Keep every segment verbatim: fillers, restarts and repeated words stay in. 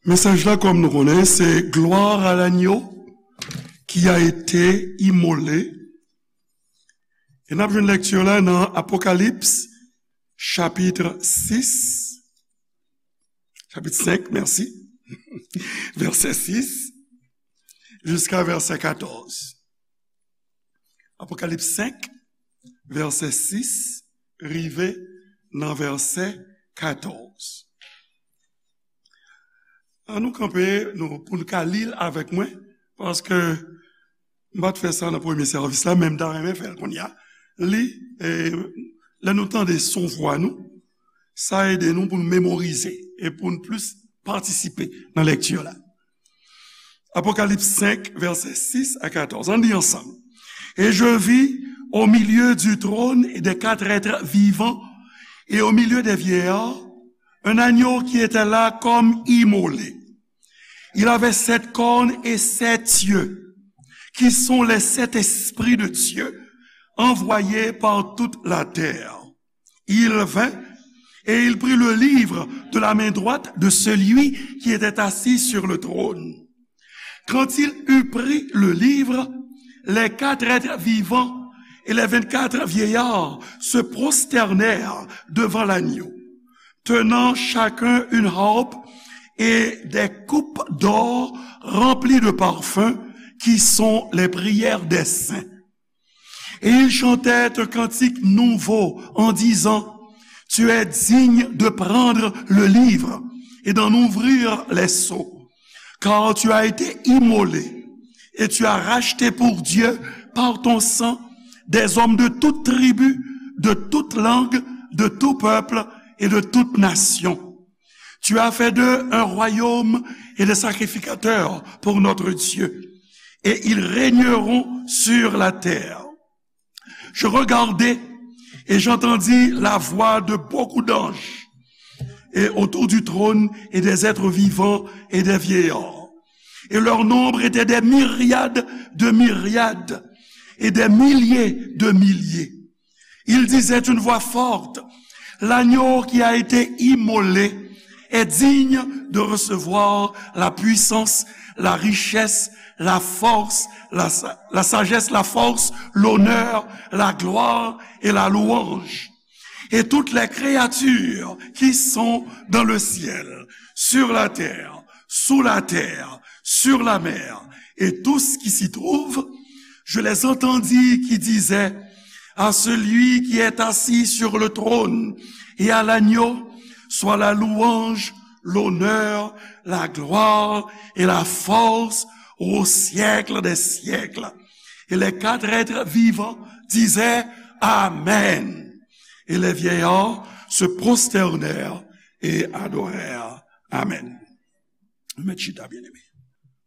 Mesaj la, kòm nou konnen, se Gloire à l'agneau qui a été immolé. E n ap jwenn lekti la nan Apokalips, chapit sis, chapit senk, mèsi, vèsè sis jiska vèsè katòz. Apokalips senk, vèsè sis, rive nan vèsè katòz. An nou kanpe, nou, pou n ka li l avèk mwen, paske m pa t fè sa nan premye sèvis la, men m ta renmen fè l kounye a. Li, e, lè nou tande son vwa nou, sa ede nou pou n memorize e pou n plis patisipe nan lekti la. Apocalypse cinq, versets six à quatorze. Ann li ansanm. Et je vis au milieu du trône et des quatre êtres vivants et au milieu des vieillards un agneau qui était là comme immolé. Il avait sept cornes et sept yeux, qui sont les sept esprits de Dieu envoyés par toute la terre. Il vint et il prit le livre de la main droite de celui qui était assis sur le trône. Quand il eut pris le livre, les quatre êtres vivants et les vingt-quatre vieillards se prosternèrent devant l'agneau, tenant chacun une harpe et des coupes d'or remplies de parfums qui sont les prières des saints. Et ils chantaient un cantique nouveau en disant, tu es digne de prendre le livre et d'en ouvrir les sceaux, car tu as été immolé et tu as racheté pour Dieu par ton sang des hommes de toute tribu, de toute langue, de tout peuple et de toute nation. Tu as fait d'eux un royaume et des sacrificateurs pour notre Dieu, et ils régneront sur la terre. Je regardai et j'entendis la voix de beaucoup d'anges, et autour du trône, et des êtres vivants et des vieillards. Et leur nombre était des myriades de myriades et des milliers de milliers. Il disait d'une voix forte, l'agneau qui a été immolé est digne de recevoir la puissance, la richesse, la force, la, la sagesse, la force, l'honneur, la gloire et la louange. Et toutes les créatures qui sont dans le ciel, sur la terre, sous la terre, sur la mer, et tout ce qui s'y trouve, je les entendis qui disaient, à celui qui est assis sur le trône et à l'agneau soit la louange, l'honneur, la gloire et la force au siècle des siècles. Et les quatre êtres vivants disaient, Amen. Et les vieillards se prosternèrent et adorèrent. Amen. Mèt chita, bien-aimé.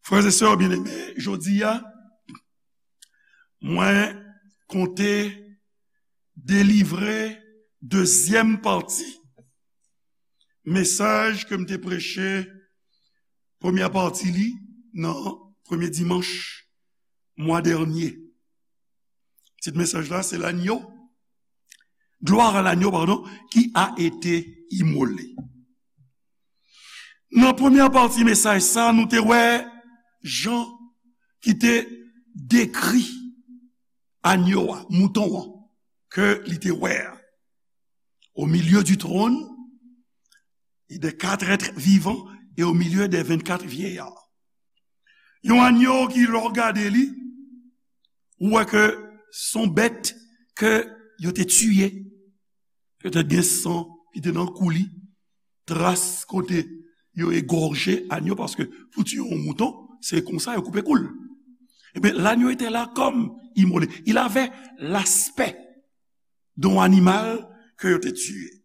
Frères et sœurs bien-aimés, jodi a, mwen konte delivre dezyèm pati mesaj ke m te preche, premyè pati li, nan premye dimanch mwa dènye. Tit mesaj la, se L'agneau, Gloire à l'agneau, pardon, qui a été immolé. Nan premyè pati mesaj sa, nou te wè Jan ki te dekri agneau a, mouton an, ke li te wè a. Au milieu du trône, et des quatre êtres vivants, et au milieu des vingt-quatre vieillards. Yon agneau ki, lè w gade li, ou wè ke se yon bèt ke yo te tiye. Petèt gen san ki te nan kou li, tras kote yo egòje agneau, paske pou tiye yon mouton, se konsa yo koupe kou l. Ebyen, l'agneau était là comme immolé. Il avait l'aspect d'un animal ke yo te tiye.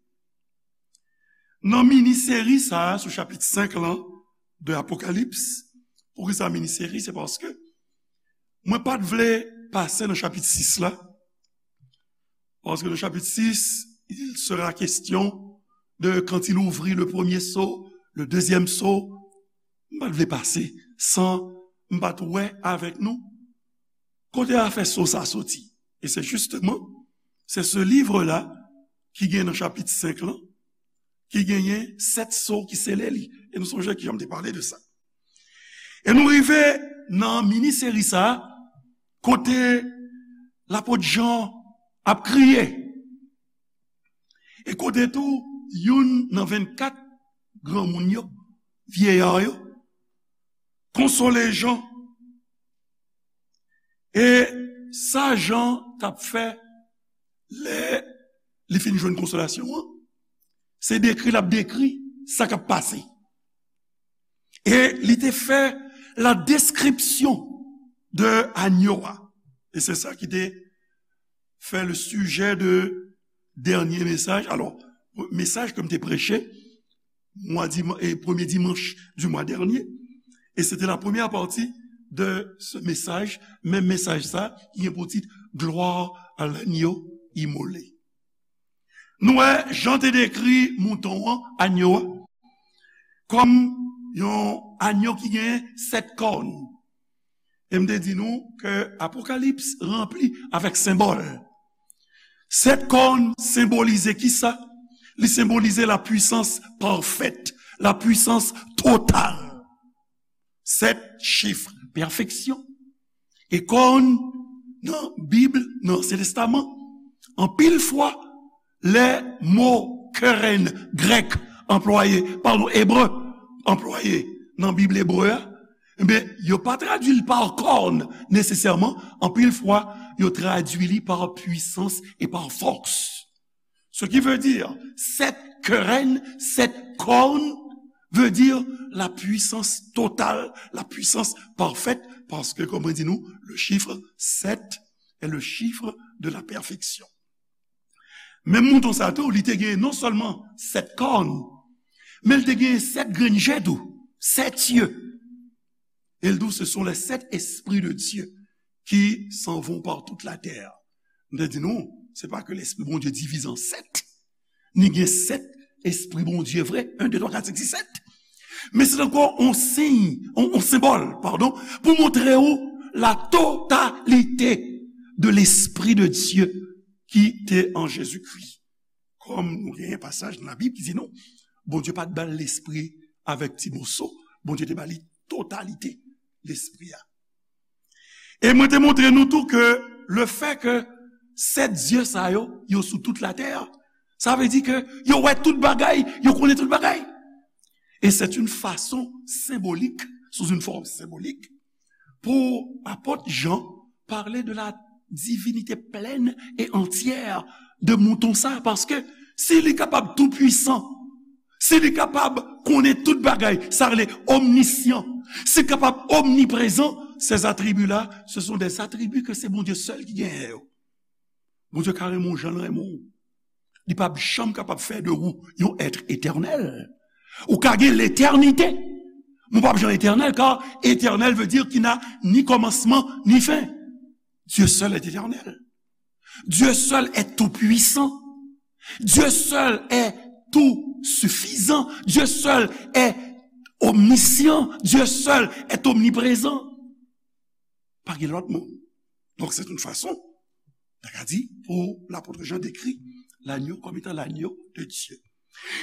Nan mini seri sa a sou chapit senk lan de Apokalips, poukisa mini seri? Se paske mwen pa t vle pase nan chapit sis la, paske nan chapit sis, il sera question de quand il ouvrit le premier sceau, le deuxième sceau. M pa t vle pase san m pa t wè avèk nou kote afè sceau sa soti. E se justement, c'est ce livre-là ki gen nan chapit senk lan, ki genyen sèt so ki sele li. E nou sonje ke Jan te pale de sa. E nou rive nan mini seri sa a, kote lapot Jan ap kriye. E kote tou, youn nan vennkat granmoun yo, vyeya yo, konsole Jan. E sa Jan t ap fè lè li fin jwenn konsolasyon an, se dekri l ap dekri sa k ap pase. E li te fè la description de anyo a. E se sa ki te fè le sujet de dernier message. Alors, mesaj ke m te preche mwa diman-, e premye dimanch du mois dernier. Et c'était la première partie de ce message, menm mesaj sa, ki gen pou tit Gloire à l'agneau immolé. Nou wè, Jan te dekri mouton an, anyo a, kòm yon anyo ki gen sèt kòn. E m te di nou ke Apokalips ranpli avèk senbòl. Sèt kòn senbolize kisa? Li senbolize la puissance parfaite, la puissance totale. Sèt chif pèfeksyon. E kòn nan Bib, nan Ansyen Testaman, anpil fwa, lè mo keren grèk anplwaye, padon, ebre anplwaye nan Bib ebre a, ebyen, yo pa tradui l pa kòn nesesèman, anpil fwa, yo tradui li pa pwisans e pa fòs. Ce qui veut dire, sept querelles, sept cornes, veut dire la puissance totale, la puissance parfaite, parce que, comme on dit nous, le chiffre sept est le chiffre de la perfection. Men mouton sa tou, li te gen non sèlman sèt kòn, men li te gen sèt grenn je tou, sept yeux. Et il dit, ce sont les sept esprits de Dieu qui s'en vont par toute la terre. M te di nou, se pa ke lespri Bondye divize an sèt. Ni gen sèt espri Bondye vre, en, de, twa, kat, senk, sis, sèt. Men se ankò yon siy, yon, yon senbòl, padon, pou montre w la totalite de lespri de Dieu ki te an Jezikri. Kòm nou genyen pasaj nan Labib ki di nou, Bondye pa t ba l lespri avèk ti moso, Bondye te ba li totalite lespri a. E mwen te montre nou tou ke le fè ke sèt zye sa yo, yo sou tout latè, sa vle di ke yo wè tout bagay, yo konnen tout bagay. Et c'est une façon symbolique, sous une forme symbolique, pou apot Jan pale de la divinité pleine et entière de mouton sa, paske si li kapab tou pwisan, si li kapab konnen tout bagay, sa rele omnisyan, si li kapab omniprezan, ces attributs-là, ce sont des attributs que c'est Bondye sèl ki genyen yo. Bondye ka renmen w jan l renmen w. Li p ap janm kapab fè de ou yon èt etènèl. Ou ka gen letènite, men w p ap janm etènèl, kar éternel veut dire qui n'a ni commencement ni fin. Dieu seul est éternel. Dieu seul est tout-puissant. Dieu seul est tout suffisant. Dieu seul est omniscient. Dieu seul est omniprésent. Pa gen lòt moun. Donk, se yon fason, ta ka di, pou lapot Jan dekri lanyo kòm etan lanyo de Dye.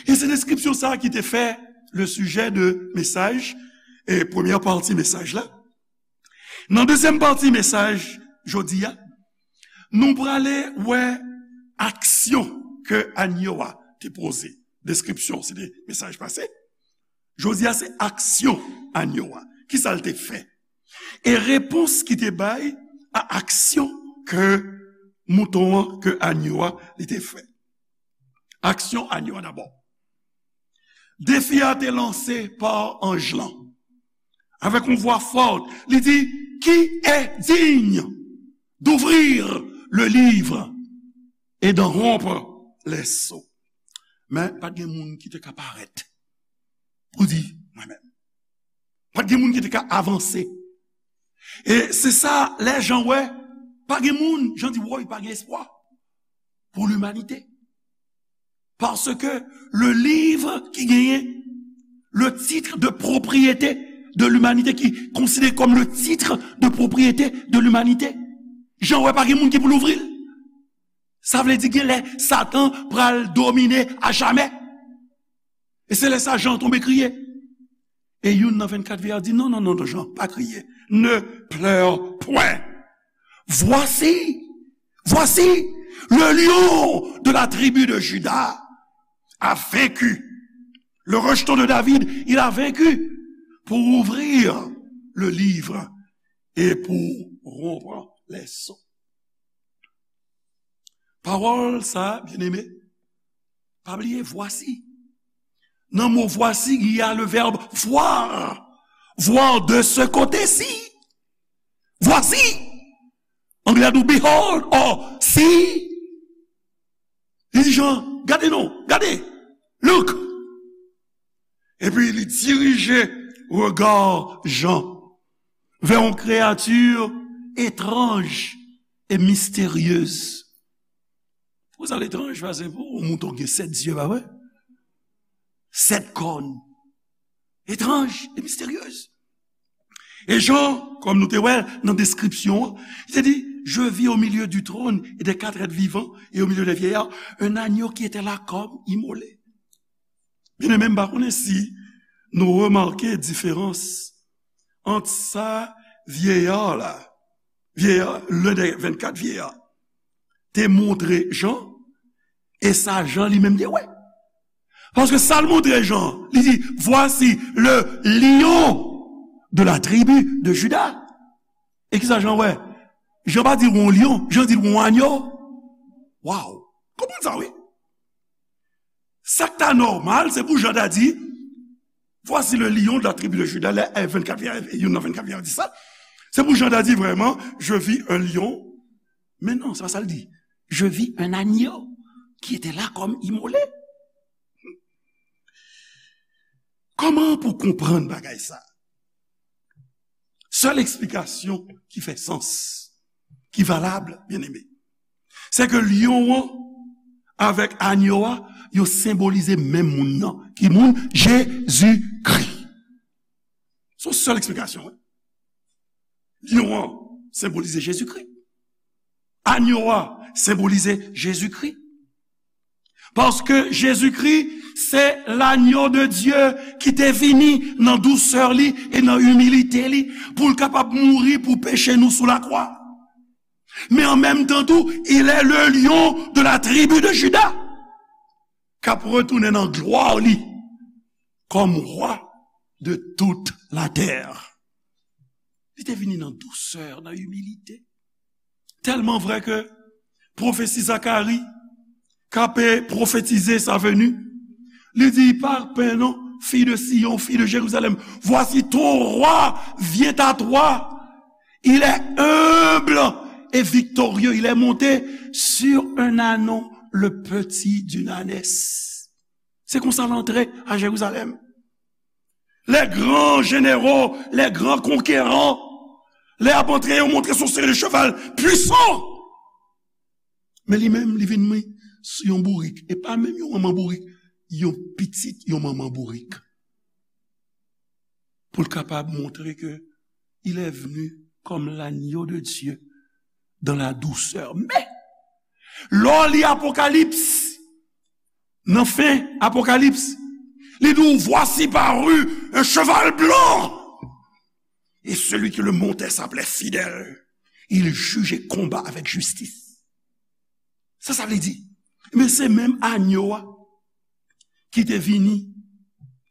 E se deskripsyon sa a ki te fè le sujet de mesaj, e premyè pati mesaj la. Nan dezyèm pati mesaj jodi a, nou prale wè aksyon ke anyo a te poze. Deskripsyon, se te mesaj pase. Jodi a, se aksyon anyo a. Kisa l te fè? E repons ki te bay a aksyon ke mouton an, ke anyo a, li te fè. Aksyon anyo a dabò. Defi a te lanse pa anj lan. Avèk yon vwa fò, li di, qui est digne d'ouvrir le livre et d'en rompre les sceaux? Men, pa t gen moun ki te ka parèt pou di, mwen menm. Pa t gen moun ki te ka avanse. E se sa, lè Jan wè, pa gen moun, Jan di, woy, pa gen espwa pou limanite. Paske le livre ki genyen le titre de propriété de l'humanité, ki konsidere kòm le titre de propriété de l'humanité, Jan wè pa gen moun ki pou louvri l. Sa vle di gen lè Satan pral domine a jamè. E se lè sa Jan tonbe kriye. E youn nan vennkat vye a di, "Non, non, non, non, Jan, pa kriye. Ne pleure point. Voici, voici, le lion de la tribu de Juda a vaincu. Le rejeton de David, il a vaincu pour ouvrir le livre et pour rompre les sceaux." Pawòl sa, byeneme, pa bliye, voici. Nan mo voici, il y a le verbe voir. Voir de ce côté-ci. Voici. Anglè a di behold or see. Li di Jan, "Gade non, gade. Look." Epi li dirije rega Jan vè yon kreyati etranj e misteryez. Pou sa l etranj, paske pou yon mouton gen sèt zye, pa vre? Sèt kòn. Etranj e misteryez. E Jan, kòm nou te wè nan deskripsyon an, li te di, "Je vis au milieu du trône et des quatre êtres vivants et au milieu des vieillards, un agneau qui était là comme immolé." Byeneme, m pa konnen si nou remake diferans ant sa vyeya la, vyeya, len dè vennkat vyeya, te montre Jan, e sa Jan li menm te wè. Paske sa l montre Jan, li di, "Voici le lion de la tribu de Juda." E kisa Jan wè? Jan pa di l wè yon lyon, Jan di l wè yon agno. Waw! Konprann sa, wi. Sa k ta nòmal, se pou Jan ta di, "Voici le lion de la tribu de Juda," lè, eh, vennkat vye, youn nan vennkat vye a di sa. Se pou Jan ta di vrèman, "Je vis un lion." Men non, se pa sa l di. "Je vis un agneau qui était là comme immolé." Kòman pou konprann bagay sa? Sèl eksplikasyon ki fè sans, ki valab, byeneme, se ke lyon an avèk agno a, yo senbolize menm moun nan. Ki moun? Jezikri. Se yon sèl eksplikasyon, wi. Lyon an senbolize Jezikri. Agno a senbolize Jezikri. Paske Jezikri, se l'agneau de Dieu ki te vini nan dousè li e nan imilite li pou l kapab mouri pou peche nou sou lakwa. Men an menm tan tou, il est le lion de la tribu de Juda k ap retounen nan glwa li kòm wa de tout la tè. Li te vini nan dousè, nan imilite. Tèlman vrè ke pwofesi Zakari, k ape pwofetize sa veni, li di, "Pa pè non, fille de Sion, fille de Jérusalem, voici ton roi vient à toi. Il est humble et victorieux, il est monté sur un ânon, le petit d'une ânesse." Se konsa l antre a Jerizalèm. Les grands généraux, les grands conquérants, lè y ap antre, yo montre se yon seri de cheval pwisan. Men li menm, li vin sou yon bourik. E pa menm yon manman bourik, yon pitit yon manman bourik. Pou l kapab montre ke il est venu comme l'agneau de Dieu dans la douceur. Men, lè w li Apokalips, nan fen Apokalips, li di w, "Voici parut un cheval blanc, et celui qui le montait s'appelait Fidèle. Il juge et combat avec justice." Sa sa vle di? Men se menm agno a ki te vini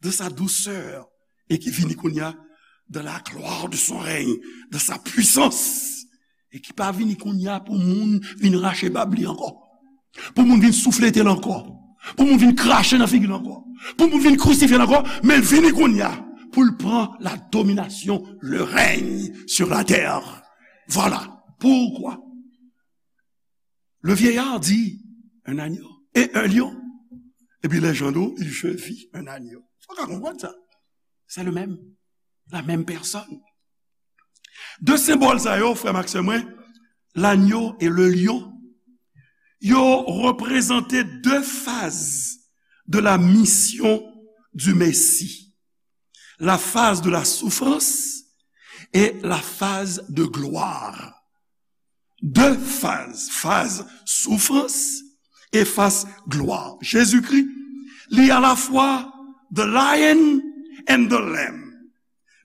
dans sa douceur e ki vini kounye a dans la gloire de son règne, dans sa puissance, e ki pa vini kounye a pou moun vin rache bab li ankò, pou moun vin souflete l ankò, pou moun vin krache nan figi l ankò, pou moun vin krisifye l ankò, men l vini kounye a pou l pran la domination, le règne sur la terre. Voilà pourquoi le vieillard dit, "Un agneau et un lion." Epi lè Jan di w, "Je vis un agneau." Ou ka konprann sa. Se le menm, la menm pèsòn. De senbòl sa yo, frè m ak sè mwen, l'agneau et le lion, yo reprezante de faz de la mission du Messie. La phase de la souffrance et la phase de gloire. De faz, faz soufrans e faz glwa. Jezikri, li alafwa The lion and the lamb.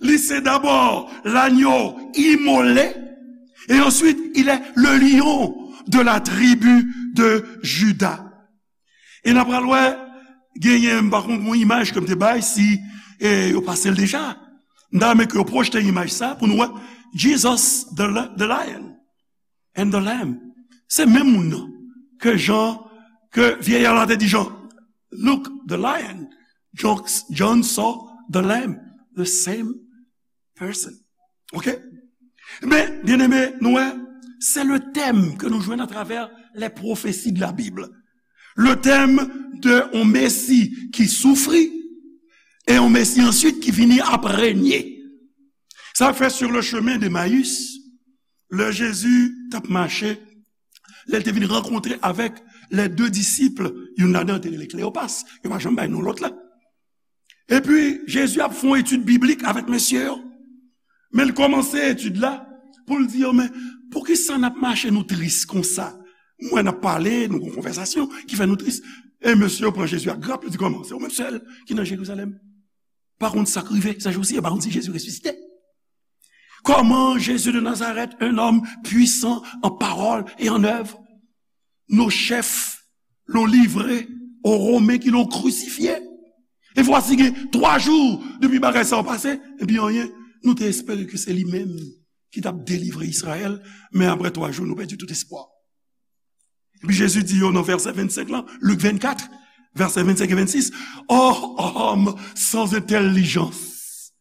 Li se dabò lanyo imole, et ensuite il est le lion de la tribu de Juda. E n ap pral wè, genyen, m pa konn yon imaj ke m te bay, si eh, yo pase l deja. M ta renmen ke yo pwojte imaj sa pou nou wè Jesus, the, the lion and the lamb. Se menm moun nan ke Jan, ke vyèyè la te di Jan, "Look, the lion." John, John saw the lamb. The same person. Ok? Men, byeneme, nou wè, se le tèm ke nou jwenn atravè les prophéties de la Bible. Le thème de yon Mesi ki soufri e yon Mesi answit ki vini ap renye. Sa fè sur le chemin d'Emmaüs, lè Jezi t ap mache, lè l te vin rankontre avèk les deux disciples, youn ladan yo te rele Kleyopas, yo pa janm bay non lòt la. Epi, Jezi ap fè yon etid biblik avèk mesye yo. Men l kòmanse etid la pou l di yo, "Men, poukisa n ap mache nou tris konsa? Mwen n ap pale, nou gon konvèsasyon ki fè nou tris." E mesye yo pran Jezi ak grap, yo di, "Kòman? Se ou menm sèl ki nan Jerizalèm? Pa konn sa k rive, sa jou si, e pa konn si Jezi resisite." Comment Jésus de Nazareth, un homme puissant en parole et en œuvre, nos chefs l'ont livré aux Romains qui l'ont crucifié. E vwasi gen twa jou depi bagay sa yo pase, epi anyen, nou te espere ke se li menm ki t ap delivre Izrayèl, men apre twa jou, nou pèdi tout espwa. Epi Jezi di yo nan vèsè vennsenk lan, Lik vennkat, vèsè vennsenk e vennsis, "Ô homme sans intelligence,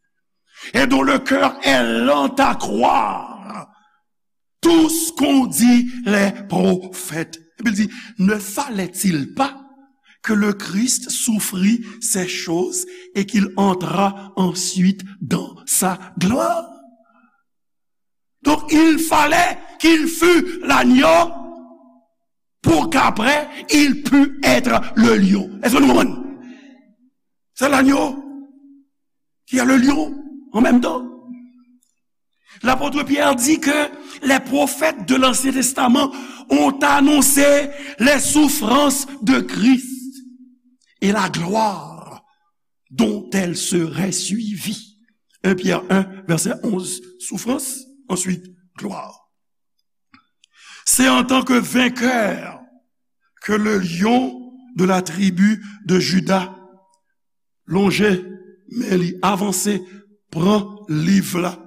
et dont le cœur est lent à croire tout ce qu'ont dit les prophètes." Epi l di, "Ne fallait-il pas que le Christ souffrit ces choses et qu'il entrât ensuite dans sa gloire?" Donc, il fallait qu'il fût l'agneau pour qu'après, il pût être le lion. Èske nou konprann? C'est l'agneau qui est le lion en même temps. L'apôtre Pierre dit que les prophètes de l'Ancien Testament ont annoncé les souffrances de Christ et la gloire dont elles seraient suivies. Un Pierre un, verset onze, souffrance, ensuite gloire. C'est en tant que vainqueur que le lion de la tribu de Juda lonje men li, avanse, pran liv la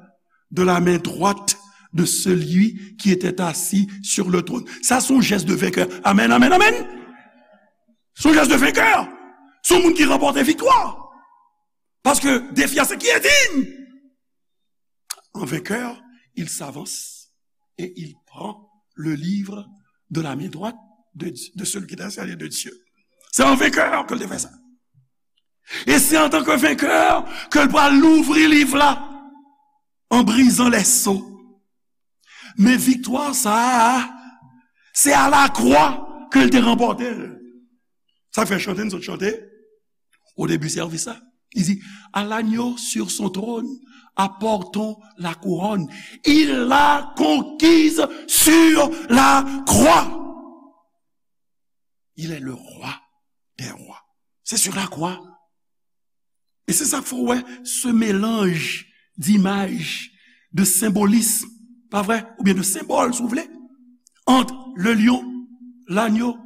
de la main droite de celui qui était assis sur le trône. Sa se yon jès de venkè. Amèn, amèn, amèn. Se yon jès de venkè. Se yon moun ki ranpòte viktwa. Paske defi a se qui est digne. En vainqueur, il s'avance et il prend le livre de la main droite de, de celui qui est assis à la droite de Dieu. Se an venkè ke l te fè sa. E se antanke venkè ke l pral louvri liv la an brizan lèso. Men viktwa sa a, se a lakwa ke l te ranpòte l. Sa fè chante n sot chante o debi sèvis la. Li di, "À l'agneau sur son trône, apportons la couronne. Il l'a conquise sur la croix. Il est le roi des rois." Se sur la croix. E se sa k fè w wè se melanj dimaj, de senbolism, pa vre? Oubyen de senbòl, si w vle, ant le lion, l'agneau.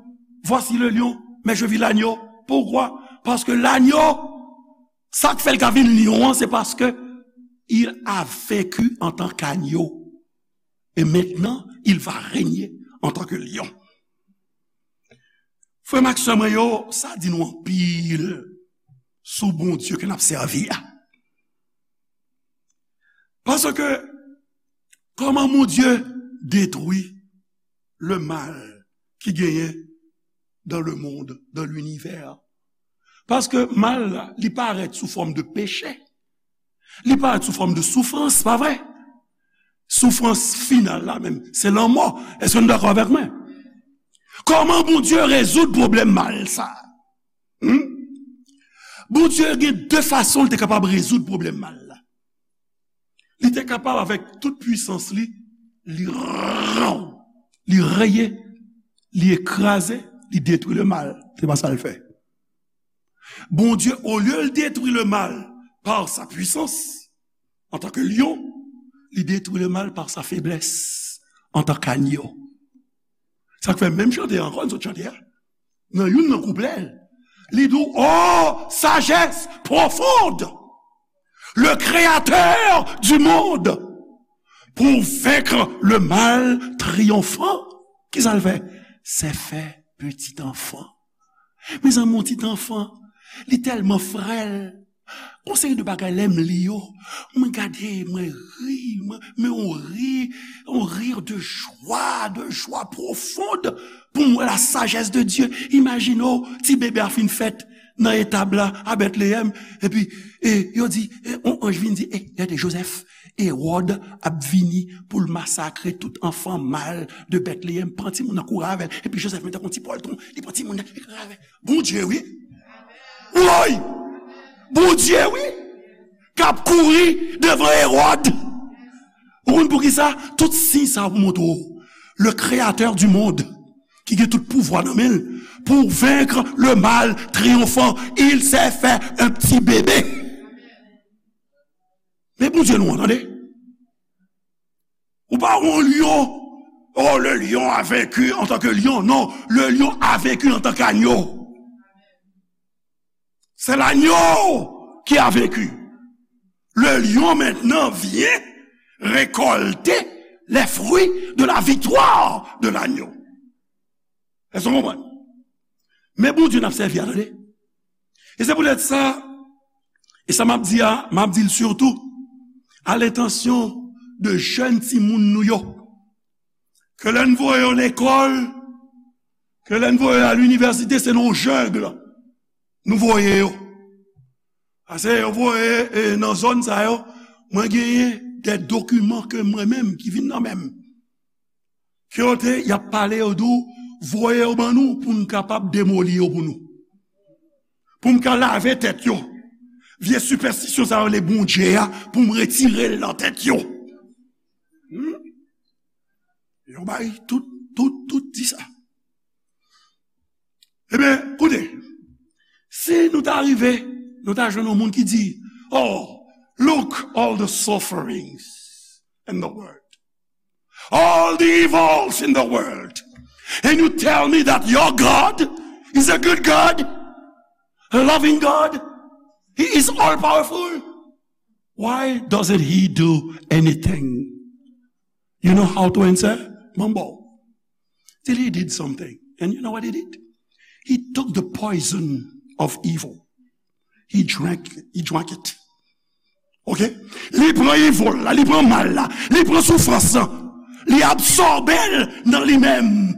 Voici le lion, mais je vis l'agneau. Poukwa? Paske l'agneau, sa k fè l ka vin lyon an, se paske il a vaincu en tant qu'agneau. Et maintenant, il va régner en tant que lion. Frè m ak sè mwen yo, sa di nou anpil sou Bondye ke n ap sèvi a. Paske, kòman Bondye detwi le mal ki genyen dans le monde, dans l'univers? Paske mal la, li parèt sou fòm de peche. Li parèt sou fòm de soufrans, pa vre? Soufrans final la menm, se lanmò. Èske nou dakò avèk mwen? Kòman Bondye rezoud pwoblèm mal sa? Hmm? Bondye gen de fason li te kapab rezoud pwoblèm mal la. Li te kapab, avèk tout pwisans li, li, li reye, li ekraze, li detwi le mal. Se pa sa l fè. Bondye, olye l detwi le mal par sa puissance, antanke lyon, li detwi le mal par sa faiblesse, antanke agno. Sa k fè menm chante a ankò, n sot chante a, nan youn nan kouplè l, li di w, ô sagesse profonde, le Créateur du monde, pour vaincre le mal triomphant. Kisa l fè? Se fè petit enfant. Mezanmi, yon ti anfan, li tèlman frèl. Gon seri de bagay, lè m li yo, mwen gade, mwen ri, mwen, men on ri, on rire de joie, de joie profonde, pou m wè la sagesse de Dieu. Imajine w, ti bebe a fin fèt nan etab la, a Bètleyèm, epi, e, yo di, e, on anj vin di, e, gade, Jozèf, Ewòd ap vini pou l masakre tout anfan mal de Bètleyèm. Pran timoun nan, kouri avè l. Epi Jozèf menm tankou yon ti pòltwon, li pran timoun nan, li kouri avè l. Bondye, wi. Woy! Bondye, wi. K ap kouri devan Ewòd. Ou konn poukisa? Tout siy sa yo pou montre w. Le Créateur du monde, ki gen tout pouvwa nan men l, pour vaincre le mal triomphant, il s'est fait un petit bébé. Men Bondye nou an, tande. Ou pa wè yon lyon, oh, le lion a vaincu en tant que lion. Non, le lion a vaincu en tant qu'agneau. C'est l'agneau qui a vaincu. Le lion maintenant vient récolter les fruits de la victoire de l'agneau. Èske w konprann? Men Bondye n ap sèvi a, tande. E se poutèt sa, e sa m ap di a, m ap di l sitou a lentansyon de jèn timoun nou yo, ke lè n voye yo lekòl, ke lè n voye yo a linivèsite, se nan yon jungle nou voye yo. Paske yo voye, e, nan zòn sa yo, mwen genyen de dokiman ke mwen menm ki vin nan men m. Ke yo te, y ap pale, yo di w, voye yo ban nou pou n kapab demoli yo pou nou. Pou m ka lave tèt yo. Vye sipèstisyon sa yo, le Bondye a, pou m retire l nan tèt yo. Hmm? Yo bay tout, tout, tout di sa. Ebyen, koute, si nou ta rive, nou ta jwenn yon moun ki di, oh, look, all the sufferings in the world, all the evils in the world, and you tell me that your God is a good God, a loving God, He is all powerful. Why doesn't He do anything? You know how to answer? Mwen ba w. Till He did something. And you know what He did? He took the poison of evil. He drank, He drank it. Ok? Li pran evil la, li pran mal la, li pran soufrans lan, li absòbe l nan li menm.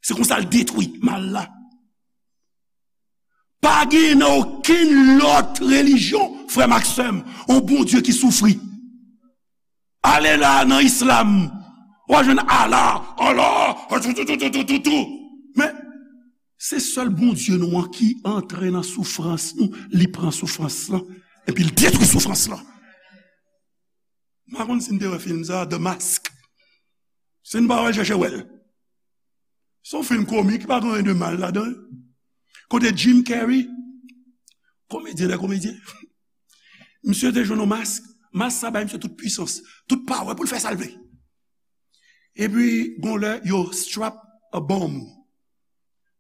Se konsa l detwi mal la. Pa gen nan okenn lòt relijyon, frè m ak sè m, yon Bondye ki soufri. Ale la nan islam, w a jwenn Allah, Allah, tou, tou, tou. Men, se sèl Bondye nou an ki antre nan soufrans nou, li pran soufrans lan, epi l detwi soufrans lan. M pa konn si n te wè fim sa, The Mask. Si n pa wè l, chèche wè l. Se yon fim komik, pa gen anyen de mal ladan l. Kote Jim Carrey, komedyen dè komedyen, misye te jwenn yon mask, mask sa bay misye tout pwisans, tout power pou l fè sa l vle. Epi, gon lè, yo strap a bomb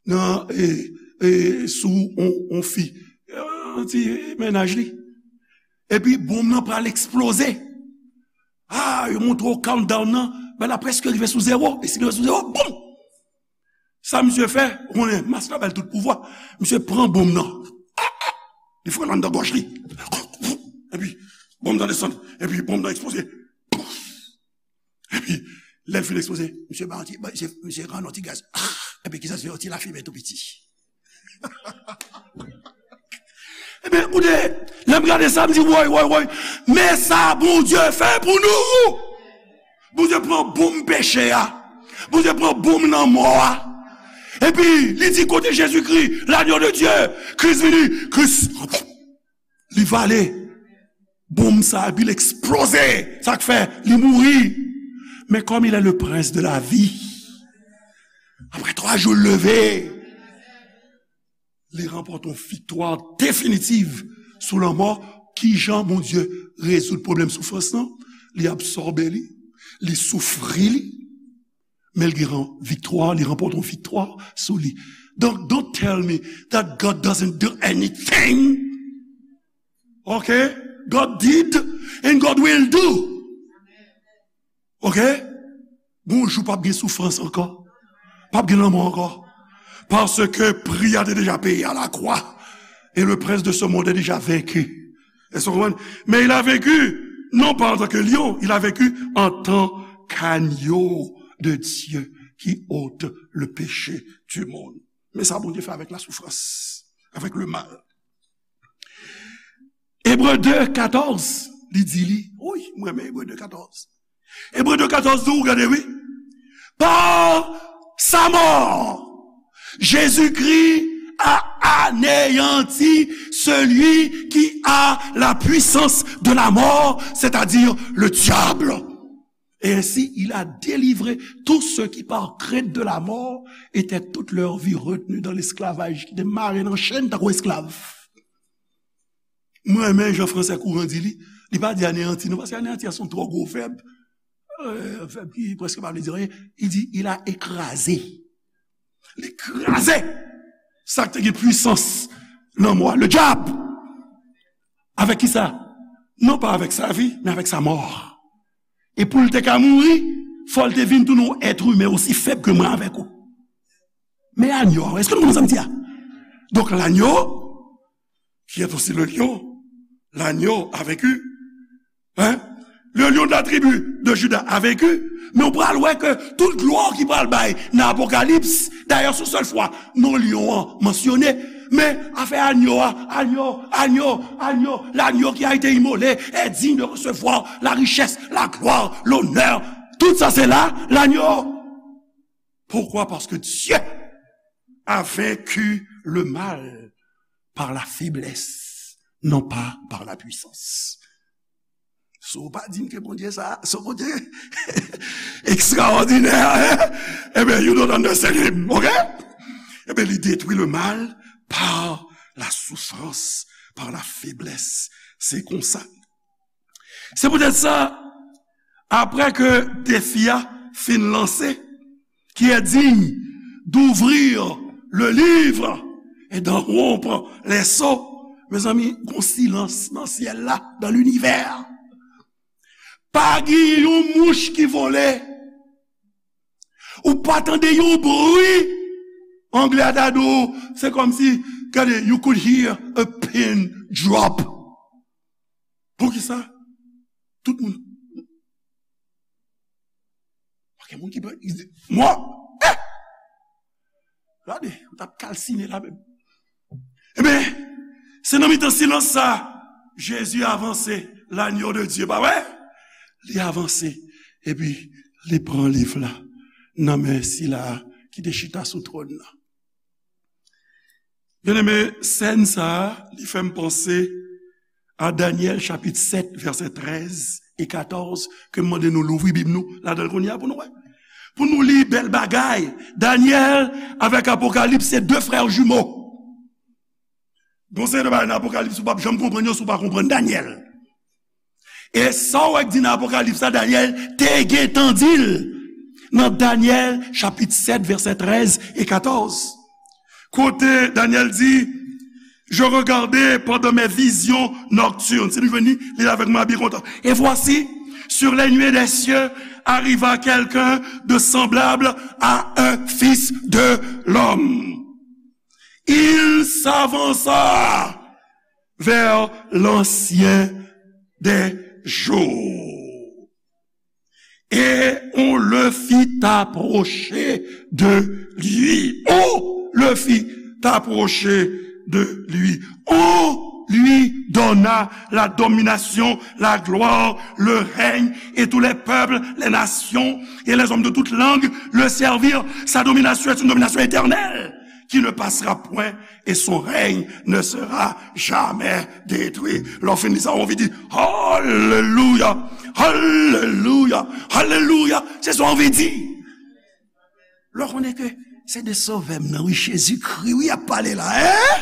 nan, e, e, sou on, on fi. Yon ti mennaj li. Epi, bonm nan pral eksploze. Ah, yo montre w countdown nan, bagay la prèske rive sou zewo. E si rive sou zewo, boum! Sa misye fè, ou konnen, mask la ba l tout pouvwa. Misye pran bonm nan. Li fè l anndan gòj li. Epi, bonm nan desann. Epi, bonm nan eksploze. Epi, lè l fin eksploze, misye ba yon ti, ba, misye, misye rann yon ti gaz. Epi, kisa l fè? Yon ti lafimen tou piti. Ebyen, koute, lè m gade sa, m di, woy, woy, woy, men sa Bondye fè pou nou! Bondye pran bonm peche a. Bondye pran bonm lanmò a. Epi, li di kote Jezikri, l'agneau de Dieu, Kris vini, Kris, li vale bonm sa, epi l eksploze. Sa k fè, li mouri. Men kòm il est le prince de la vie, apre twa jou, l leve. Li ranpòte yon viktwa definitiv sou lanmò. Kijan Bondye rezoud pwoblèm soufrans lan? Li absòbe li, li soufri li, men li gen yon viktwa, li ranpòte yon viktwa sou li. Donk, don't tell me that God doesn't do anything. Ok? God did and God will do. Ok? Gon jou p ap gen soufrans ankò. P ap gen lanmò ankò. Paske pri a te deja peye à la croix. Et le prince de ce monde est déjà vaincu. Èske w konprann? Mais il a vaincu, non pas en tant que lion, il a vaincu en tant qu'agneau de Dieu qui ôte le péché du monde. Men sa Bondye fè avèk la soufrans, avèk le mal. Ebre de katòz, li di li, wi, mwen renmen Ebre de katòz. Ebre de katòz di w, gade, wi. Par sa mort, Jésus-Christ a anéanti celui qui a la puissance de la mort, c'est-à-dire le diable. Et ainsi, il a délivré tous ceux qui, par crainte de la mort, étaient toute leur vie retenus dans l'esclavage, ki te mare nan chenn tankou esklav. Mwen renmen jan fransè kouran di li. Li pa di aneyanti non, paske aneyanti a se yon twò gwo vèb. Euh, vèb ki prèske pa vle di anyen. Li di, il a écrasé. Li kraze sa k te gen pwisans lanmò a, le dyab. Avèk ki sa? Non pa avèk sa vi, men avèk sa mò. E pou l te ka mouri, fò l te vin tounen yon èt imen osi fèb ke mwen avèk ou. Men anyo a, èske nou konprann sa m di a? Donk, lanyo, qui est aussi le lion, l'agneau a vaincu. Hein? Le lion de la tribu de Juda a vaincu. Men ou pral wè ke tout glwa ki pral bay nan Apokalips, dayè, se yon sèl fwa non lyon an mansyone. Men afè anyo a, anyo, anyo, anyo, l'agneau qui a été immolé est digne de recevoir la richesse, la gloire, l'honneur. Tout sa se la, lanyo. Pourquoi? Parce que Dieu a vaincu le mal par la faiblesse, non pas par la puissance. Si w pa di m ke Bondye sa, se yon Bondye ekstraòdinè, hein? Ebyen, you don't understand him, ok? Ebyen, li detwi le mal par la souffrance, par la faiblesse. Se konsa. Se poutèt sa, apre ke defi a fin lanse, qui est digne d'ouvrir le livre et d'en rompre les sceaux. Mezanmi, gon silans nan syèl la, dans l'univers. Pa gen yon mouch ki vole. Ou pa tande yon bri. Anglè a ta di w, se kòmsi, gade, you could hear a pin drop. Poukisa? Tout moun. Pa gen moun ki pè. Mò. Eh! Gade, ou t ap kalsine la menm. Ebyen, se nan mitan silans sa, Jezi avanse, l'agneau de Dieu, pa vre? Li avanse, epi li pran liv la nan men sila ki te chita sou twòn nan. Byeneme, sèn sa a, li fè m panse a Danyèl chapit sèt, vèsè trèz e katòz, ke m mande nou louvri Bib nou ladan l kounye a pou nou wè. Pou nou li bèl bagay. Danyèl avèk Apokalips se de frè jimo. Gon seri de bagay nan Apokalips ou p ap janm konprann yo si w pa konprann Danyèl. E sa w wè k di nan Apokalips la, Danyèl te gentan di l nan Danyèl chapit sèt, vèsè trèz e katòz. Kote Danyèl di, Je regardais pendant mes visions nocturnes. Si nou jwenn li, li avèk mwen, byen kontan. Et voici, sur les nuées des cieux arriva quelqu'un de semblable à un fils de l'homme. Il s'avança vers l'Ancien des jours. Et on le fit approcher de lui. On le fit approcher de lui. On lui donna la domination, la gloire, le règne, et tous les peuples, les nations et les hommes de toute langue le servirent. Sa dominasyon est une domination éternelle qui ne passera point et son règne ne sera jamais détruit. Lè w fin li sa, w anvi di, Alelouya, alelouya, alelouya. Se sa w anvi di. Lè w konnen ke Se de Sovè m nan, wi, Jezikri, wi, y ap pale la, en?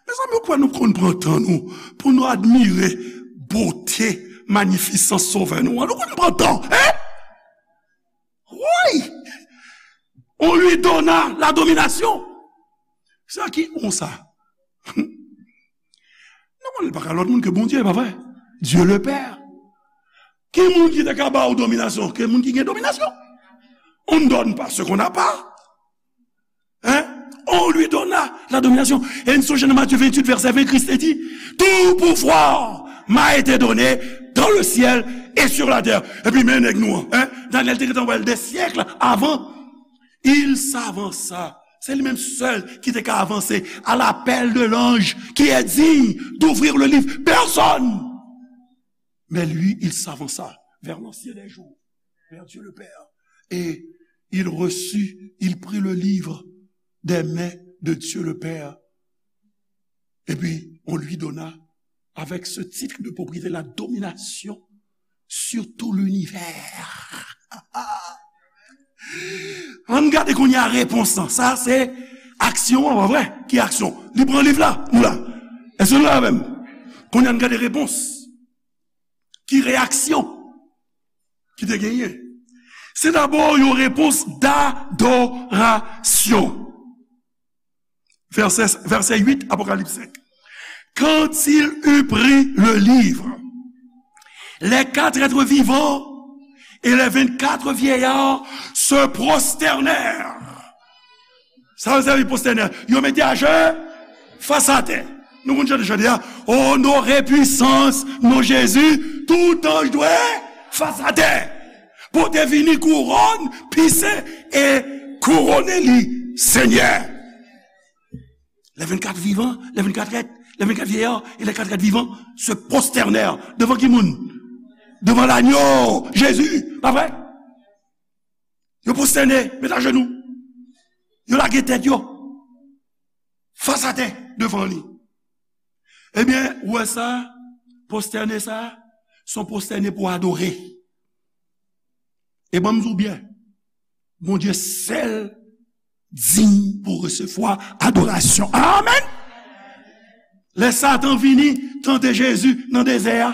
Mezanmi, ou kwè nou konn pran tan nou pou nou admire bote, manifisans Sovè nou an? Nou konn pran tan, en? Wi! On lui donna la domination. Sa ki on sa? Non, li pa ka lòt moun ke Bondye, pa vre? Dieu le Père. Ki moun ki te ka ba ou dominasyon? Ke moun ki gen dominasyon. On ne donne pas ce qu'on n'a pas. Hein? On lui donna la domination. E n sonje nan Matye venntuit, vèsè ven, Kris te di, tout pouvoir m'a été donné dans le ciel et sur la terre. Epi men nèg nou an, en? Danyèl te gentan wè l de syèk avan. Il s'avança. Se li menm sèl ki te ka avanse à l'appel de l'ange qui est digne d'ouvrir le livre. Personne. Mais lui, il s'avança vers l'Ancien des jours, vers Dieu le Père. Et il reçut, il prit le livre des mains de Dieu le Père. Et puis, on lui donna, avec ce titre de propriété, la domination sur tout l'univers. Ann gade kounye a repons lan. Sa se aksyon an, pa vre? Ki aksyon? Li pran liv la, nou la. Èske nou la avè m? Kounye a ann gade repons. Ki reyaksyon ki te genyen? Se dabò yon repons dadorasyon. Vèsè, vèsè uit, Apokalips senk. Quand il eut pris le livre, les quatre êtres vivants et les vingt-quatre vieillards se prosternèrent. Sa yo sèvi prostène. Yo mete ajenou fas atè. Nou konn chante chante a, onore pwisans non Jezi, tout anj dwe fas atè. Pou te vini kouwòn, pise e kouwone li Senyè. Les vingt-quatre vivants, les vingt-quatre êtres, les vingt-quatre vieillards et les quatre êtres vivants se prosternèrent. Devan ki moun? Devan lanyo, Jezi, pa vre? Yo pwostène, met ajenou. Yo lage tèt yo fas atè devan li. Ebyen, ou wè sa, pwostène sa, se yon pwostène pou adore. E ban m di w byen, Bondye sèl diy pou resevwa adorasyon. Amèn! Lè Satan vini tante Jezi nan dezè a,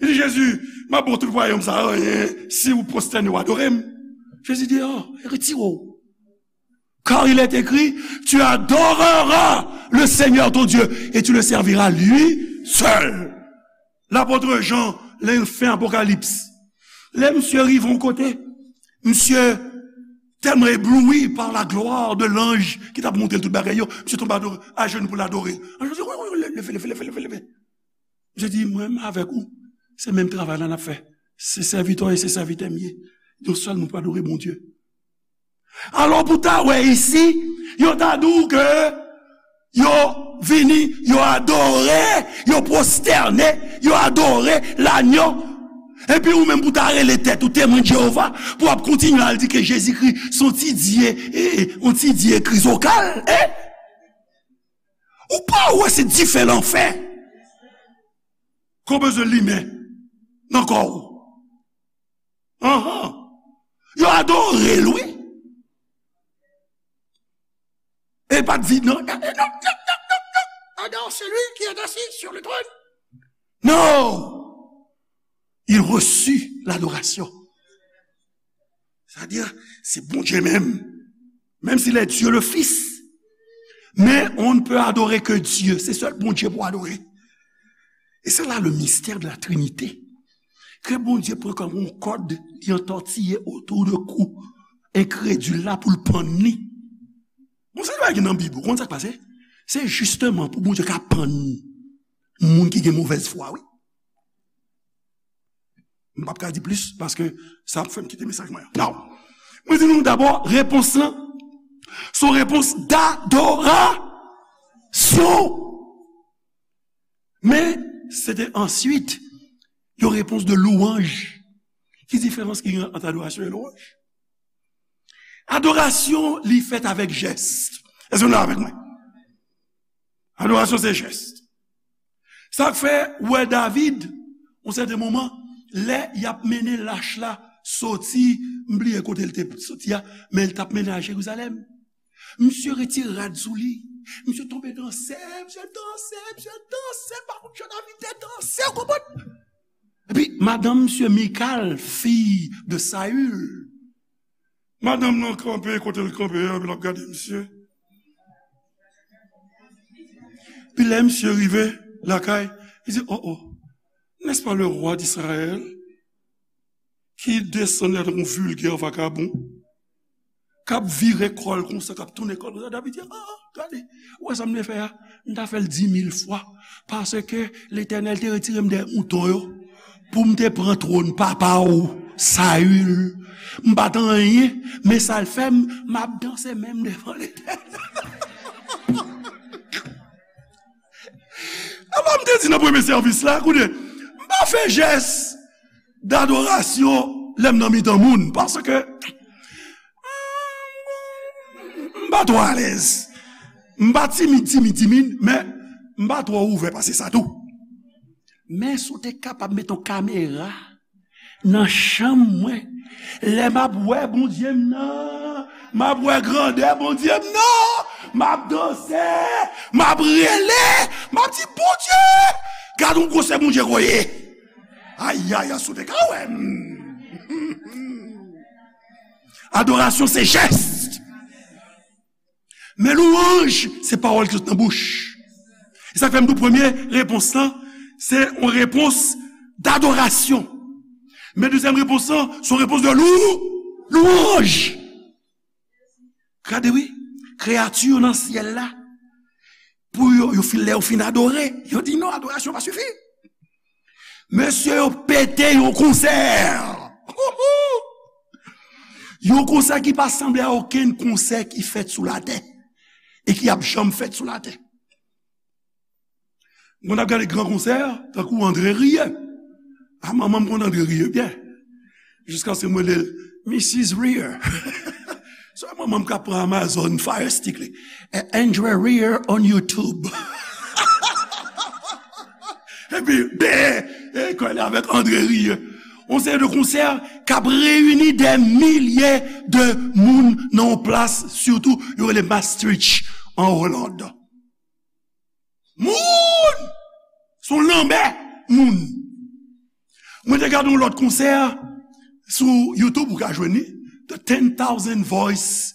li di, Jezi, m ap ba w tout wayòm sa a, anyen, si w pwostène w adore m. Jezi di, oh, retire w. Car il est écrit, tu adoreras le Seigneur ton Dieu et tu le serviras lui seul. Lapot Jan, lè l fè Apokalips, lè misye rive yon kote, misye tèlman ebloui par la gloire de l'ange ki t ap montre l tout bagay yo, misye tonbe adore, ajenou pou l adore l. Anj yo di, wi, wi, wi, leve, leve, leve, leve, leve. Misye di, mwen menm avèk ou, se menm travay la n ap fè. Se sèvitè w e se sèvitè m ye. Yon sèl moun pou adore Bondye. Alò, pou ta wè isi, yo ta di w ke yo vini, yo adore, yo pwostène, yo adore lanyo. Epi ou menm pou ta rele tèt ou Temwen Jewova, pou w ap kontinye al di ke Jezikri se yon ti dye, e, e, yon ti dye krizokal, e? Ou pa wè se dife lanfè ke w bezwen limen nan kò w? Anhan. Yo adore l, wi. E pa t di, non, non, non, non, non, non, non. Adore celui qui est assis sur le trône. Non. Il reçut l'adoration. Sa di, se Bondye menm. Menm si l è Dye le Fis. Men on ne peut adorer que Dieu. Se sèl Bondye pou adore. E se la le mystère de la Trinité. Ke Bondye pran kòm yon kòd, li antòtiye otou de kou enkredil la pou l pann li. Bon, sa nou gen nan Bib, ou konn sa k pase? Se jisteman pou Bondye ka pann moun ki gen movèz fwa, wi. M p ap ka di plis, paske sa ap fè m kite mesaj mwen an. Non. Mwen di nou dabò, repons lan, se yon repons dadorasyon. Men, se te answit yon repons de lwanj. Ki diferans ki gen ant adorasyon e lwanj? Adorasyon, li fèt avèk jès. Èske nou la avèk mwen? Adorasyon, se jès. Sa k fè, ou wè David, yon sèten moman, lè y ap mennen lach la soti, m bliye kote l te soti a, men l t ap mennen al Jerizalèm. Misye retire rad sou li. Misye tonbe danse, misye danse, misye danse, pa konn jan David te danse, w konprann? Epi, madanm misye Mikal, fi de Saül. Madanm nan kanpe kote l kanpe a, epi l ap gade misye. Epi lè misye rive lakay, li di, "Oh, oh, n'est-ce pas le roi d'Israël qui descend là, yon vilgè vakabon, k ap vire kò l konsa, k ap tounen kò l konsa?" David di, "Ah, ah, gade, ou wè sa m te fè a? M ta fè l di mil fwa, paske Letènèl te retire m dèyè mouton yo, pou m te pran twòn papa w, Saül. M pa t anyen, men sa l fè m, m ap danse menm devan Letènèl." Alò, m te di nan premye sèvis la, koute, m pa fè jès dadorasyon lè m nan mitan moun, paske m pa twò alèz. M pa timid, timid, timid, men m pa twò ouvè pase sa tou. Men si w te kapab met yon kamera nan chanm mwen, lè m ap wè Bondye m nan, m ap wè grandè Bondye m nan, m ap danse, m ap rele, m ap di, "Bondye, gad yon gwosè Bondye koye." Ayayay, si w te ka wè m. Adorasyon se jès. Men lwanj, se pawòl ki sot nan bouch. E sa k fè m di w premye repons lan, se yon repons dadorasyon. Men dezyèm repons lan, se yon repons de lou, lwanj. Gade wi, kreyati yo nan syèl la, pou yo, yo fin, lè yo fin adore, yo di, "Non, adorasyon pa sifi." Mesye, yo pete yon konsè. Yon konsè ki pa sanble a okenn konsè ki fèt sou latè e ki ap janm fèt sou latè. Mwen ap gade gran konsè, tankou André Rieu. A, manman m konn André Rieu byen. Jiskaske mwen rele l Missus Rieu. Se manman m k ap pran Amazon Fire Stick li. Eh, André Rieu on YouTube. Epi, ben, e, kole avèk André Rieu. Yon seri de konsè k ap reyini dè milye de moun nan yon plas, sitou, yo rele Maastricht, an Oland. Moun! Se yon lanmè moun. Mwen te gade yon lòt konsè sou YouTube, ou ka jwenn li, The Ten Thousand Voice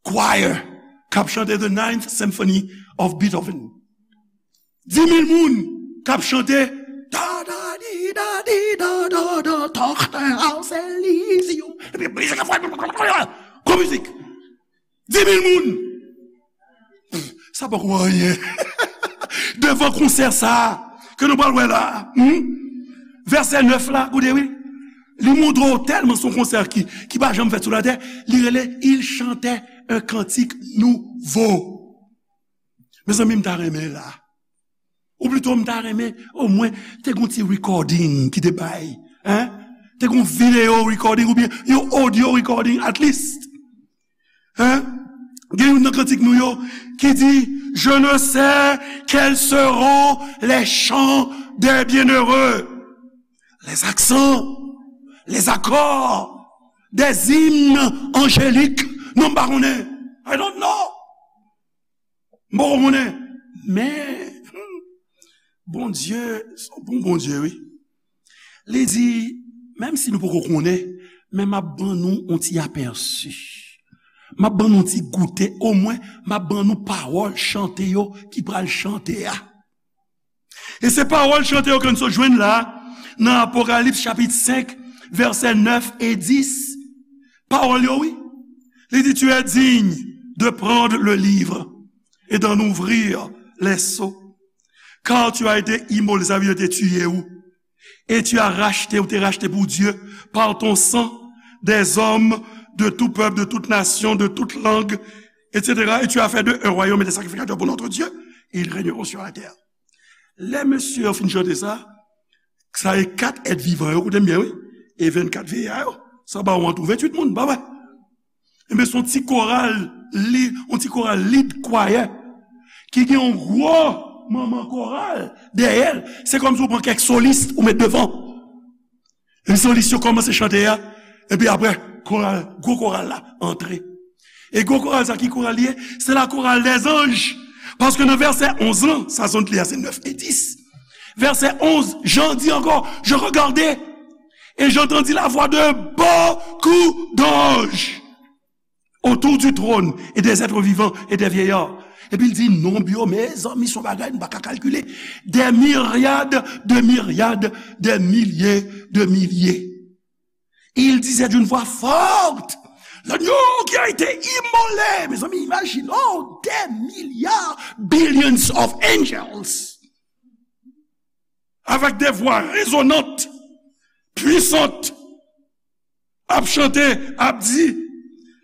Choir, k ap chante The Ninth Symphony of Beethoven. Di mil moun k ap chante, da, da, di, da, di, da, da, da, Tochter aus Elysium. Epi mizik ap fè, gwo mizik. Di mil moun. Sa poko anyen. Devan konsè sa a, ke nou pral wè la a, hmm? Vèsè nèf la, koute wi. Li montre w tèlman se yon konsè ki, ki pa janm fèt sou latè, li rele Il chantait un cantique nouveau. Mezanmi, m ta renmen la. Ou plito, m ta renmen, omwen, te gon ti recording ki te bay. Hein? Te gon video recording oubyen yon audio recording, at least. Hein? Gen youn nan kantik nou yo ki di, Je ne sais quels seront les chants des bienheureux, les accents, les accords des hymnes angéliques. Non, m pa konnen. I don't know. M poko konnen. Men, hmm, Bondye, se yon bon Bondye, wi. Li di, menm si nou poko konnen, men m ap ban nou yon ti apèsi. M ap ban nou yon ti goute, omwen, m ap ban nou pawòl chante yo ki pral chante a. E se pawòl chante yo ke n sot jwenn la, nan Apokalips chapit senk, vèsè nèf e dis. Pawòl yo, wi. Li di, Tu es digne de prendre le livre et d'en ouvrir les sceaux. Car tu as été immolé, sa vle di yo te tiye ou. Et tu as racheté, ou te rachte pou Dye, par ton sang, des hommes de tout peuple, de toute nation, de toute langue, et cetera. Et tu as fait d'eux un royaume et des sacrificateurs pour notre Dieu, et ils régneront sur la terre. Lè mesye yo fin chante sa, sa e kat èt vivan yo, koute m byen, wi, e vennkat veya yo, sa ba ou an tou venntuit moun, pa vre? Enben, se yon ti koral, li, yon ti koral lead choir, ki gen yon gwo manman koral dèyè l. Se kòmsi ou pran kèk solis ou met devan. E solis yo kòmanse chante a, Epi apre, koral, gwo koral la antre. E gwo koral sa, ki koral li ye? Se la chorale des anges. Paske nan vèsè onz lan, sa zòt li a se nèf e dis. Vèsè onz, Jan di ankò, je regardais, et j'entendis la voix de beaucoup d'anges autour du trône et des êtres vivants et des vieillards. Epi l di, nonb yo, mezanmi, se yon bagay nou pa ka kalkile. Des myriades de myriades, des milliers de milliers. Il disait d'une voix forte, l'agneau qui a été immolé. Mezanmi, imajine, oh, des milliards, billions of angels, avec des voix résonnantes, puissantes, ap chante, ap di,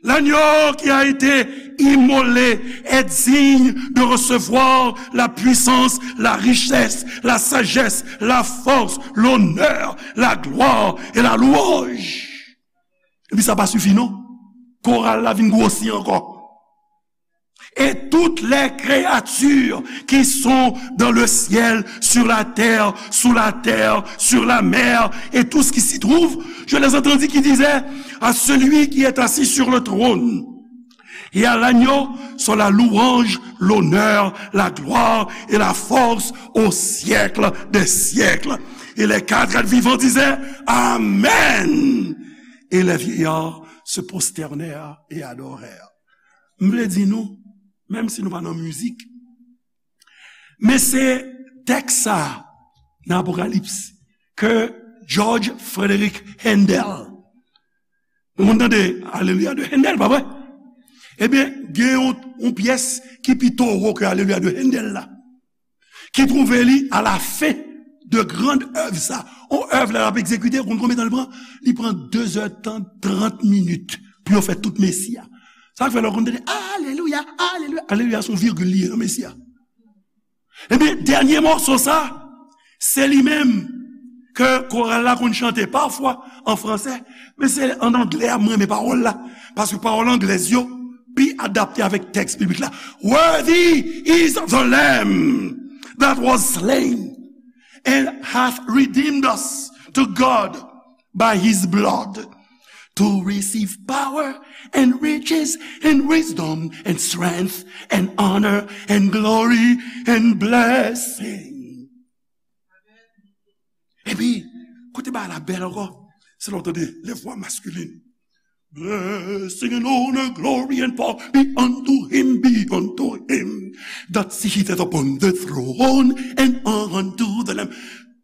l'agneau qui a été immolé est digne de recevoir la puissance, la richesse, la sagesse, la force, l'honneur, la gloire et la louange. Epi sa pa sifi non. Koral la vin gwosi ankò. Et toutes les créatures qui sont dans le ciel, sur la terre, sous la terre, sur la mer, et tout ce qui s'y trouve, je les entendis qui disaient à celui qui est assis sur le trône et à l'agneau soit la louange, l'honneur, la gloire et la force au siècle des siècles. Et les quatre êtres vivants disaient, Amen. Et les vieillards se prosternèrent et adorèrent. M vle di nou, menm si nou pa nan mizik, men se tèks sa a nan Apokalips ke George Frederick Handel, nou konn tande Aleluya de Handel, pa vre? Ebyen, gen yon, yon pyès ki pi towo ke Aleluya de Handel la, ki twouve li a la fen de grand èv sa. On èv la l ap egzekite, ou konn konbyen tan li pran? Li pran de zè tan, trant minit pou yo fè tout Mesi a. Sa k fè lè w konn tande, Aleluya, Aleluya, Aleluya, se yon virgil li ye nan Mesi a. Ebyen, dènye mòso sa, se li menm ke koral la konn chante pafwa an fransè, men se an anglè a m renmen pawòl la, paske pawòl anglèz yo pi adapte avèk tèks biblik la. Worthy is the Lamb that was slain and hath redeemed us to God by his blood, to receive power and riches and wisdom and strength and honor and glory and blessing. Epi, kote bagay la bèl ankò, se lè w tande les voix masculines. Blessing and honor, glory and power be unto him, be unto him that sitteth upon the throne and unto the Lamb.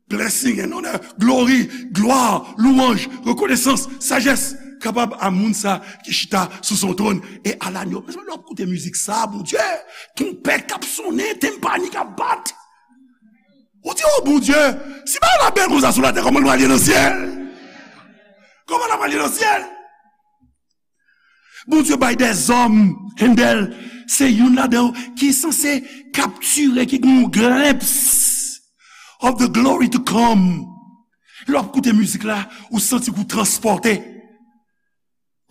Blessing and honor, glory, glwa, louanj, rekonesans, sajès, kapab a moun sa ki chita sou son twòn e a lanyo. Mezanmi, lè w ap koute mizik sa, Bondye, twonpèt k ap sonnen, tenpani k ap bat. Ou di, o Bondye, si bagay la bèl konsa sou latè, kòman l pral ye nan syèl? Kòman l ap pral ye nan syèl? Bondye bay dèzòm, Handel, se youn ladan yo ki sanse kaptire, ki gen yon glimpse of the glory to come. Lè w ap koute mizik la, ou santi ke w transpòte.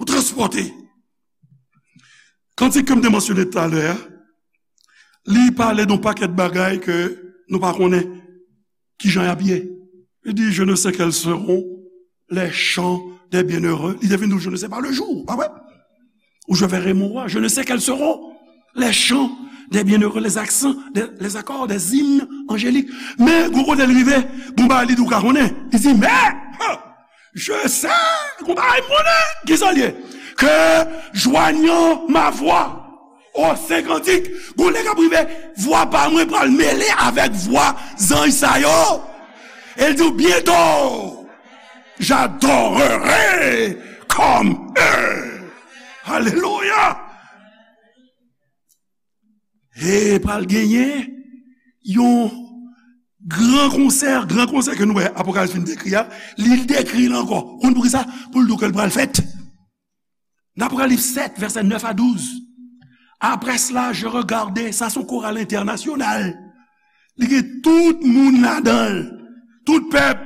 Ou transpòte. Kantik ke m te mansyone talè a, li pale de yon pakèt bagay ke nou pa konnen kijan y ap ye. Li di, je ne sais quels seront les chants des bienheureux. Li te vin di, je ne sais pas le jour, pa vre? Où je verrai mon roi. Je ne sais quels seront les chants des bienheureux, les accents, des, les accords des hymnes angéliques. Men, gwo kote l rive, bon bagay li di ou ka konnen. Li di, men, ha, je sais, gon bagay m konnen, ki sa l ye? Que joignant ma voix aux saints cantiques, gon lè k ap rive, vwa pa mwen pral mele avèk vwa zanj sa yo. E l di w, bientôt, j'adorerai comme eux. Alelouya! E pral genyen yon gran konsè, gran konsè ke nou wè Apokalips fin dekri a, li dekri l ankò. Konn poukisa? Pou l di w ke l pral fèt. Nan Apokalips sèt, vèsè nèf a douz. Après cela, je regardai, sa se yon koral entènasyonal. Li gen tout moun ladan l, tout pèp.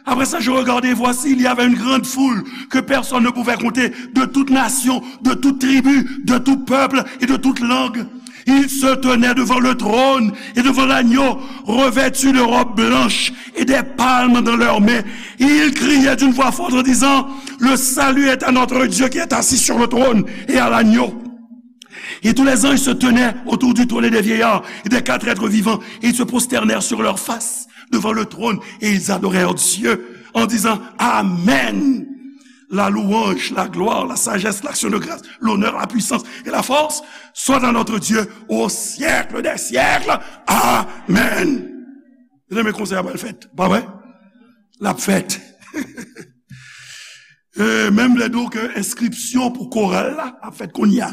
Après ça, je regardai, et voici, il y avait une grande foule que personne ne pouvait compter, de toute nation, de toute tribu, de tout peuple et de toute langue. Ils se tenaient devant le trône et devant l'agneau, revêtus de robes blanches et des palmes dans leurs mains. Ils criaient d'une voix forte en disant, le salut est à notre Dieu qui est assis sur le trône et à l'agneau. Et tous les anges se tenaient autour du trône et des vieillards et des quatre êtres vivants, et ils se prosternèrent sur leur face devant le trône, et ils adorèrent Dieu en disant, Amen. La louange, la gloire, la sagesse, l'action de grâce, l'honneur, la puissance et la force soient à notre Dieu au siècle des siècles. Amen. Mezanmi, konsèy a pral fèt, pa vre? L ap fèt. E, menm lè di w ke enskripsyon pou koral la ap fèt kounye a.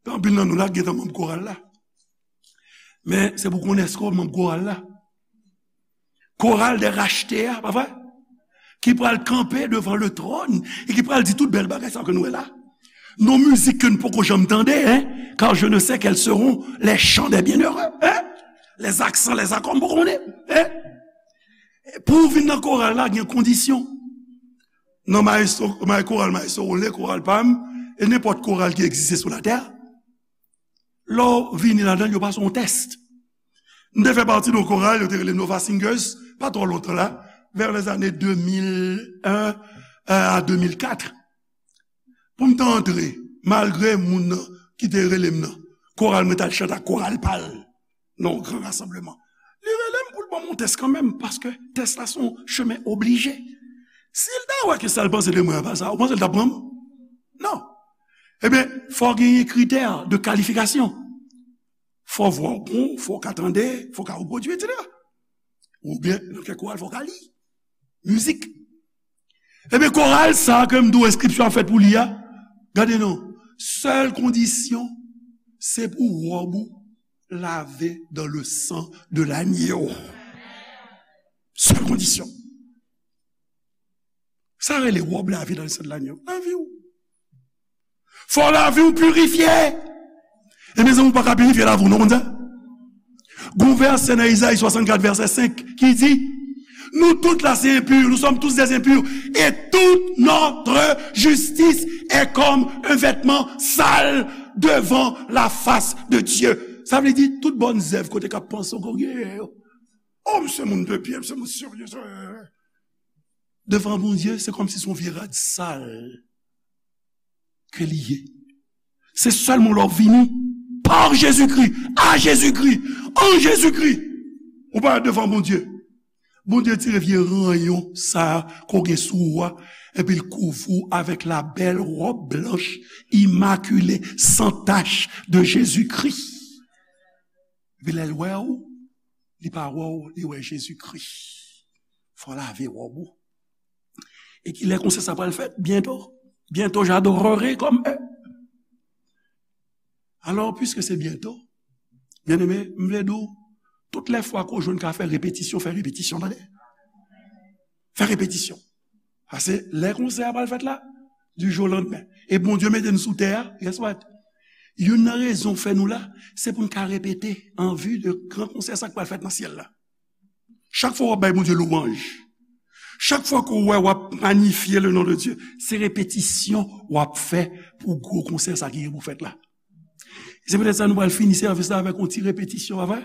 Gen anpil nan nou la ki gentan manm koral la. Men se pou konnen èske w manm koral la. Koral dè rachte a, pa vre? Ki pral kanpe devan le tròn e ki pral di tout bèl bagay sa ke nou wè la. Non mizik ke n poko janm tande, hein? Car je ne sais quels seront les chants des bienheureux, hein? Les accents, les accords, m poko konnen, hein? Pou w vin nan koral la, gen kondisyon. Nan maestro, ma-, koral Maestro Rolé, koral pa m, e nenpòt koral ki egziste sou latè, lè w vini ladan l, yo pase yon tès. M te fè pati de yon koral, yo te rele Nova Singers, pa twò lontan la, vers les années deux mille un, euh, à deux mille quatre. Pou m te antre, malgre moun nan ki te rele m nan, koral mwen t al chante ak koral pa l nan yon gran rasanbleman. Li rele m pou l ban m yon tès kanmenm, paske tès la se yon chemen oblije. Si l ta wè ke sa l panse de mwen an pa sa, ou panse l t ap pran m? Non. Ebyen, fò w genyen kritè de kalifikasyon. Fò vwa w bon, fò w ka tande, fò w ka repwodui, etsetera. Oubyen, nan kèk koral, fò w ka li mizik. Ebyen, koral sa a ke m di w enskripsyon ap fèt pou li a, gade non, sèl kondisyon, se pou wòb ou lave dans le sang de l'agneau. Sèl kondisyon. Sa rele wòb lave dans le sang de l'agneau. Lavi w. Fò lavi w pirifye. E mezanmi, ou pa ka pirifye lavi w, non, konn sa? Gon vèsè nan Izayi swasannkat, vèsè senk, ki di, nous tous là, c'est impur, nous sommes tous des impurs, et toute notre justice est comme un vêtement sale devant la face de Dieu. Sa vle di, tout bòn zèv kote k ap panse w gen yo. Oh, m se moun de byen, m se moun serye. Devan Bondye, se kòmsi se yon vye rad sal ke li ye. Se sèlman lè w vini pa Jezikri, a Jezikri, an Jezikri, ou parèt devan Bondye. Bondye tire vye ranyon sa a ke w gen sou ou a, epi l kouvri w avèk la bèl wòb blanch, imakile, san tach de Jezikri. Epi lè l wè w, li pa wè w, li wè Jezikri. Fò w lave wòb ou. E kilè konsèy sa pral fèt? Byento. Bientôt j'adorerai comme eux. Alors, puisque c'est bientôt, byeneme, m vle di w, tout lè fwa ke w jwenn ka fè repetisyon, fè repetisyon, tande. Fè repetisyon. Paske lè konsèy a pral fèt la, du jour au lendemain. E Bondye mete n sou tè a, guess what? Youn nan rezon fè nou la, se pou n ka repete an vi de gran konsèy sa k pral fèt nan syèl la. Chak fwa w ap bay Bondye lwanj, chak fwa ke w wè w ap magnifye le nom de Dieu, se repetisyon w ap fè pou gwo konsèy sa ki gen pou fèt la. Se poutèt sa nou pral fini sèvis la avèk yon ti repetisyon, pa vre?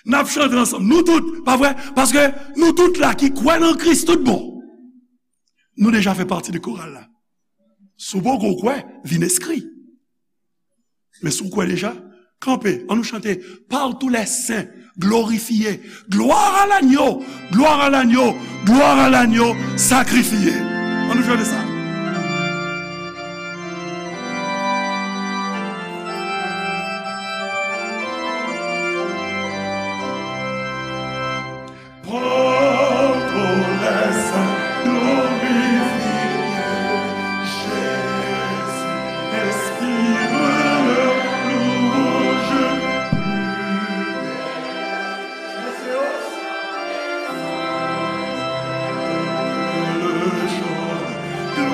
N ap chante ansanm, nou tout, pa vre? Paske nou tout la ki kwè nan Kris tout bon, nou deja fè pati de koral la. Si w poko kwè, vin enskri. Men si w kwè deja, kanpe, ann nou chante, Par tous les saints, glorifié, gloire à l'agneau, gloire à l'agneau, gloire à l'agneau sacrifié. Ann nou chante sa. Prends ton essai, glorifie Jésus, inspire le louange plus belle. Le chant de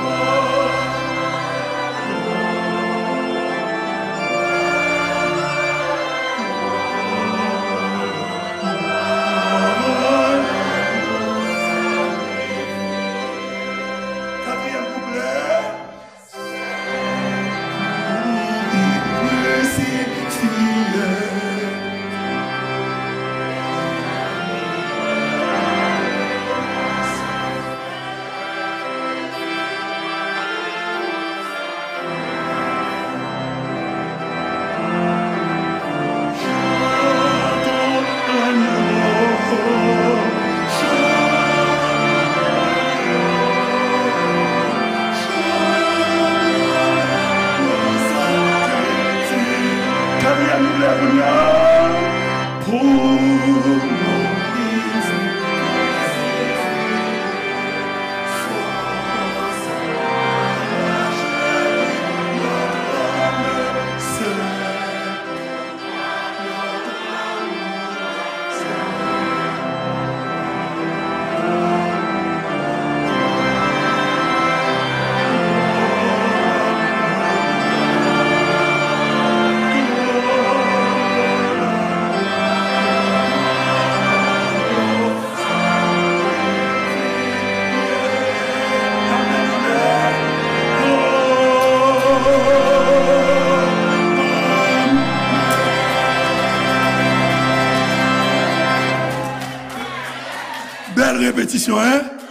Bèl repetisyon, en?